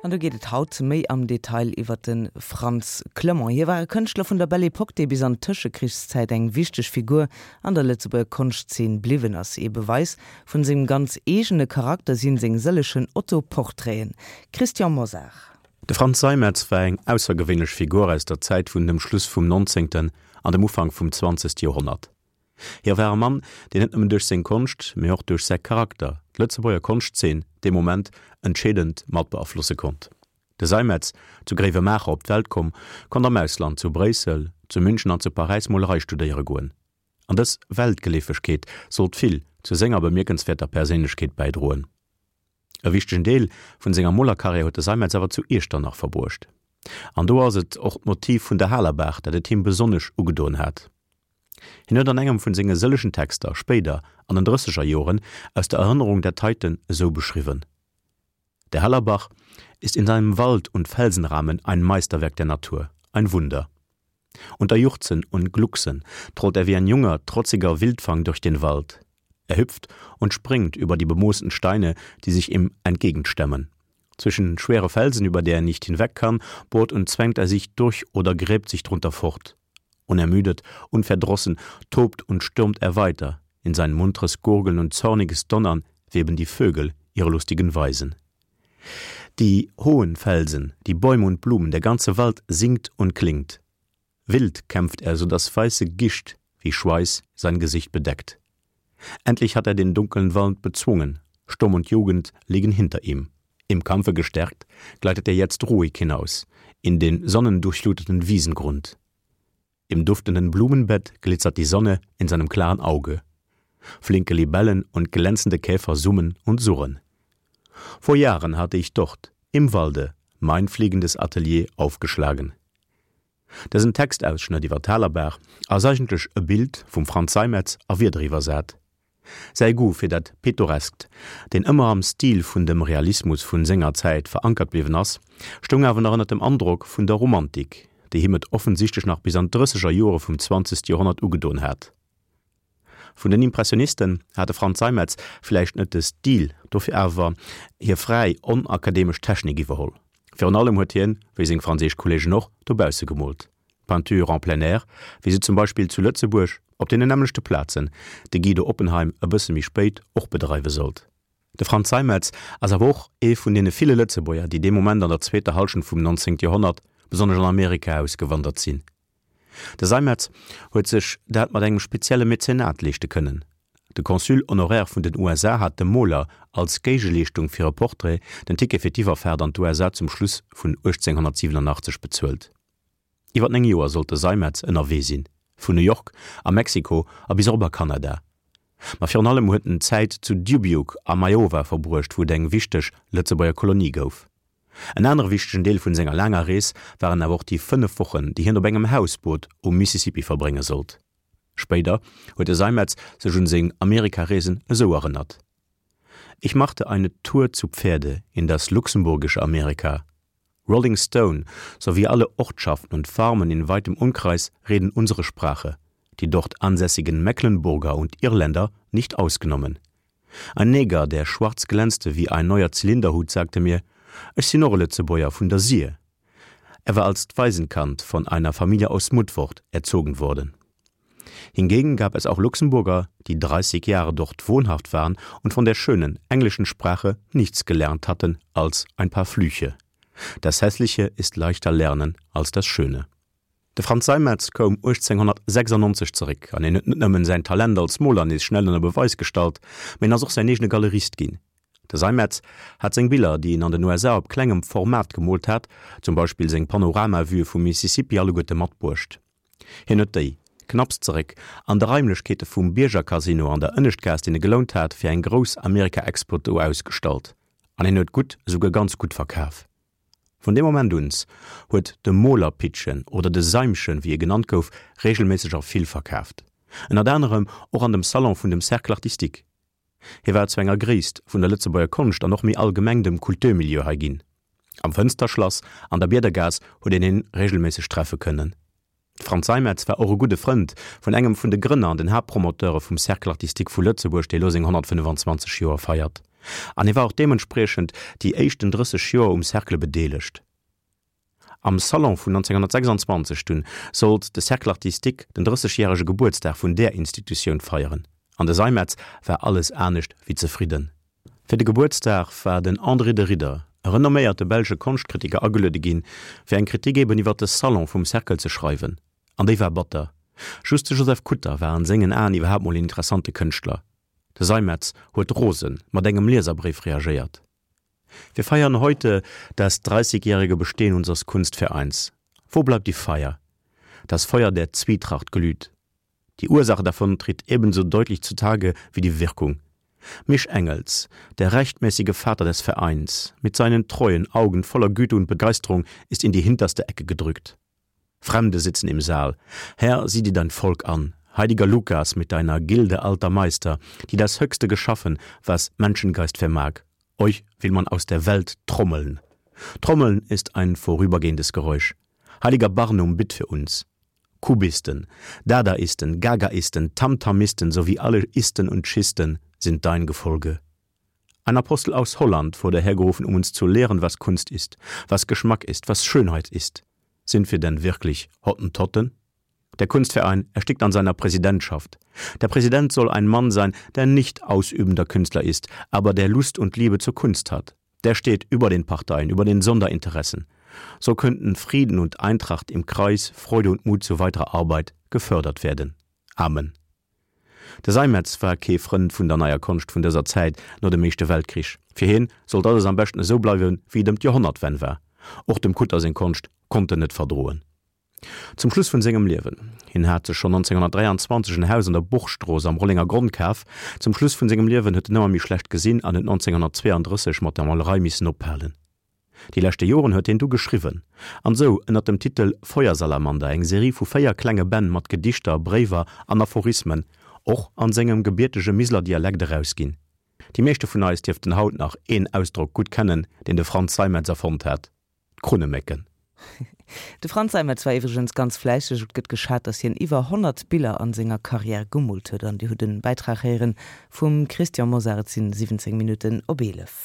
An do geet et haut méi am Detail iwwer de Frantz Clement. Hie war e Kënschtler vun der Belle Epoque, dee bis an d'Tëschekrichszäit eng wichteg Figur an der Lëtzebuerger Konschtzeen bliwwen ass. Ee Beweis vun sengem ganz eegene Charakter sinn seng sëllechen Autoportraiten. Christian Mosar. De Frantz Seimetz war eng aussergewéinlech Figur aus der Zäit vun dem Schluss vum nonzéngten an dem Ufank vum zwanzegste Joerhonnert. Hie war e Mann, deen net nëmmen duerch seng Konscht, mee och duerch säi Charakter d'Lëtzebuerger Konschtzeen dee Moment entscheedend mat beaflosse konnt. De Seimetz, zu Gréiwemaacher op d'Welt komm, konnt am Ausland, zu Bréissel, zu München an zu Paräis Molerei studéiere goen. An dës Weltgeleefegkeet sollt vill zu senger bemierkenswäerter Perséinlechkeet bäidroen. E wichtegen Deel vun senger Molerkarriär huet de Seimetz awer zu Iechternach verbruecht. An do ass et och d'Motiv vun der Halerbaach, dat et him besonnesch ugedoen hat. Hien huet an engem vun senge sëllechen Texter, spéider an den drësseger Joren, aus der Erënnerung dat heiten esou beschriwwen, Der Hallerbach ist in seinem Wald und Felsenrahmen ein Meisterwerk der Natur, ein Wunder. Unter Juchzen und Glucksen trollt er wie ein junger, trotziger Wildfang durch den Wald. Er hüpft und springt über die bemoosten Steine, die sich ihm entgegenstemmen. Zwischen schwere Felsen, über der er nicht hinweg kann, bohrt und zwängt er sich durch oder gräbt sich drunter fort. Unermüdet, unverdrossen tobt und stürmt er weiter. In sein munteres Gurgeln und zorniges Donnern weben die Vögel ihre lustigen Weisen. Die hohen Felsen, die Bäume und Blumen, der ganze Wald singt und klingt. Wild kämpft er, so dass weiße Gischt wie Schweiß sein Gesicht bedeckt. Endlich hat er den dunklen Wald bezwungen, Sturm und Jugend liegen hinter ihm. Im Kampfe gestärkt, gleitet er jetzt ruhig hinaus in den sonnendurchfluteten Wiesengrund. Im duftenden Blumenbett glitzert die Sonne in seinem klaren Auge. Flinke Libellen und glänzende Käfer summen und surren. Vor Jahren hatte ich dort, im Walde, mein fliegendes Atelier aufgeschlagen. Dësen Textausschnëtt iwwer d'Halerbaach ass eigentlech e Bild vum Frantz Seimetz a Wierder iwwersat. Säi Goût fir dat Pittoreskt, deen ëmmer am Stil vun dem Realismus vun senger Zäit verankert bliwwen ass, stoung awer nach ënner dem Androck vun der Romantik, déi him et offensichtlech nach bis an d'Drësseger Joere vum zwanzegste Joerhonnert ugedoen hat. Vun den Impressionisten hat de Frantz Seimetz vläicht net de Stil, dofir awer hir fräi, onakademesch Technik iwwerholl. Virun allem huet hien, wéi seng franséisch Kolleegen och, dobausse gemoolt, Peinture en plein air, wéi se zum Beispill zu Lëtzebuerg op deenen nämmlechte Plazen de Guido Oppenheim e bësse méi spéit och bedreiwe sollt. De Frantz Seimetz ass awer och ee vun deene ville Lëtzebuerger, déi dee Moment an der zweeter Hallschent vum 19. Joerhonnert besonnesch an Amerika ausgewandert sinn. De Seimetz huet sech dat mat engem spezielle Mäzenat leeschte kënnen. De Consul honoraire vun den USA hat dem Moler als Géigeleeschtung fir e Portrait den Ticket fir d'Iwwerfaart an d'USA zum Schluss vun 1887 bezuelt. Iwwer 9 Joer sollt de Seimetz ënnerwee sinn, vun New York a Mexiko a bis erop a Kanada. Ma virun allem huet en Zäit zu Dubuque am Iowa verbruecht, wou et eng wichteg Lëtzebuerger Kolonie gouf. En anere wichtegen Deel vun senger laanger Rees waren awer och déi 5 Wochen, déi hien op engem Hausboot um Mississippi verbrénge sollt. Spéider huet de Seimetz sech un seng Amerikareesen esou erënnert, Ich machte eine Tour zu Pferde in das luxemburgische Amerika. Rolling Stone sowie alle Ortschaften und Farmen in weitem Umkreis reden unsere Sprache, die dort ansässigen Mecklenburger und Irländer nicht ausgenommen. Ein Neger, der schwarz glänzte wie ein neuer Zylinderhut, sagte mir: Ech sinn och e Lëtzebuerger vun der Sir. Er war als Waisenkind von einer Familie aus Mutfort erzogen worden. Hingegen gab es auch Luxemburger, die 30 Jahre dort wohnhaft waren und von der schönen englischen Sprache nichts gelernt hatten als ein paar Flüche. Das Hässliche ist leichter lernen als das Schöne. De Frantz Seimetz koum 1896 zeréck an hien huet net nëmmen säin Talent als Moler nees schnell ënner Beweis gestallt, mee en ass och säin eegene Galerist ginn. De Seimetz hat seng Biller, déi en an den USA op klengem Format gemoolt hat, zum Beispill seng Panoramavue vum Mississippi, alleguerte matbruecht. Hien huet déi, knapps zeréck an de Raimlechkeete vum Bierger-Casino an der Ënneschtgaass, deen e gelount hat, fir eng grouss Amerika-Expo do ausgestallt an hien huet gutt, esouguer ganz gutt verkaf. Vun deem Moment uns huet de Molerpittchen oder de Seimchen, wéi e genannt gouf, regelméisseg a vill verkaaft. Ënnert anerem och an dem Salon vun dem Cercle Artistique. Hie war zu enger Gréisst vun der Lëtzebuerger Konscht an och méi allgemeng dem Kulturmilieu hei ginn. Am Fënsterschlass an der Biedergaass huet een hien regelméisseg treffe kënnen. De Frantz Seimetz war och e gudde Frënd vun engem vun de Grënner an den Haaptpromoteure vum Cercle Artistique vu Lëtzebuerg, dee lo seng 125 Joer feiert. An hie war och deementspriechend déi éischten 30 Joer um Cercle bedeelegt. Am Salon vun 1926 dunn sollt de Cercle artistique den 30 järege Gebuertsdag vun där Institutioun feieren. An de Seimetz war alles anescht wéi zefridden. Fir de Gebuertsdag war den André de Ridder, e renomméierte belsche Konschtkritiker ageluede ginn, fir eng Kritik eben iwwer de Salon vum Cercle ze schreiwen. An déi war batter. Just de Joseph Kutter war an sengen Aen iwwerhaapt mol een interessante Kënschtler. De Seimetz huet rose mat engem Lieserbréif reagéiert. Wir feiern heute das dreißigjährige Bestehen unseres Kunstvereins. Wo bleibt die Feier? Das Feuer der Zwietracht glüht. Die Ursache davon tritt ebenso deutlich zutage wie die Wirkung. Misch Engels, der rechtmäßige Vater des Vereins, mit seinen treuen Augen voller Güte und Begeisterung ist in die hinterste Ecke gedrückt. Fremde sitzen im Saal. Herr, sieh dir dein Volk an. Heiliger Lukas mit deiner Gilde alter Meister, die das Höchste geschaffen, was Menschengeist vermag. Euch will man aus der Welt trommeln. Trommeln ist ein vorübergehendes Geräusch. Heiliger Barnum, bitt für uns. Kubisten, Dadaisten, Gagaisten, Tamtamisten sowie alle Isten und Schisten sind dein Gefolge. Ein Apostel aus Holland wurde hergerufen, um uns zu lehren, was Kunst ist, was Geschmack ist, was Schönheit ist. Sind wir denn wirklich Hottentotten? Der Kunstverein erstickt an seiner Präsidentschaft. Der Präsident soll ein Mann sein, der nicht ausübender Künstler ist, aber der Lust und Liebe zur Kunst hat. Der steht über den Parteien, über den Sonderinteressen. So könnten Frieden und Eintracht im Kreis, Freude und Mut zu weiterer Arbeit gefördert werden. Amen. De Seimetz war kee Frënd vun der neier Konscht vun dëser Zäit no dem Éischte Weltkrich. Fir hien sollt alles am beschten esou bleiwen, wéi et ëm d'Joerhonnertwenn war. Och dem Kutter seng Konscht konnt en net verdroen. Zum Schluss vun sengem Liewen, hien hat sech schonn 1923 en Haus an der Burgstrooss am Rollenger Gronn kaf, zum Schluss vun sengem Liewen huet en ëmmer méi schlecht gesinn an huet 1932 mat der Molerei missen ophalen. Déi leschte Joren huet hien du geschriwwen an sou ënnert dem Titel Feuersalamander eng Serie vu 4 klenge Bänn mat Gedichter, Bréiwer an Aphorismen, och an sengem gebiertege Miseler Dialekt, erausginn. Déi meeschte vun eis dierften haut nach een Ausdrock gutt kennen, deen de Franz Seimetz erfonnt hat, D'Krunnemécken. De Franz Seimetz war iwwregens ganz fläisseg. Et gëtt geschat, datt hien iwwer 100 Biller an senger Karriär gemoolt huet. An Dir hutt en Bäitrag héieren vum Christian Mosar. Et sinn 17 Minutten op 11.